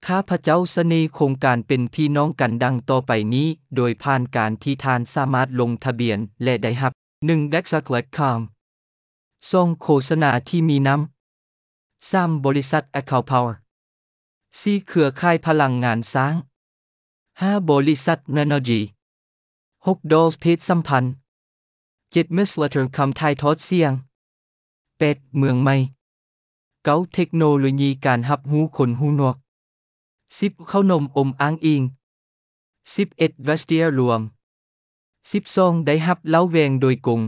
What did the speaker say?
ຂ້າພະເຈົ້າສະເໜີໂຄງການເປັນພີ່ນ້ອງກັນດັ່ງຕໍ່ໄປນີ້, ໂດຍຜ່ານການທີ່ທ່ານສາມາດລົງທະບຽນ ແລະ ໄດ້ຮັບ ໜຶ່ງ Exact ລອດຄອມ ສອງ ໂຄສະນາທີ່ມີນຳ ສາມ ບໍລິສັດ Account Power ສີ່ ເຄືອຂ່າຍພະລັງງານຊ້າງ ຫ້າ ບໍລິສັດ Renogy ຫົກ Dolls ເພດສຳພັນ ເຈັດ Miss Letter ຄຳຖ່າຍທອດສຽງ ແປດ ເມືອງໃໝ່ ເກົ້າ ເທັກໂນໂລຢີການຮັບຮູ້ຄົນຫູໜວກ ສິບ ເຂົ້າໜົມອົມອ້າງອີງ ສິບເອັດ Vestiaire ລວມ ສິບສອງ ໄດ້ຮັບເຫຼົ້າແວງໂດຍກົງ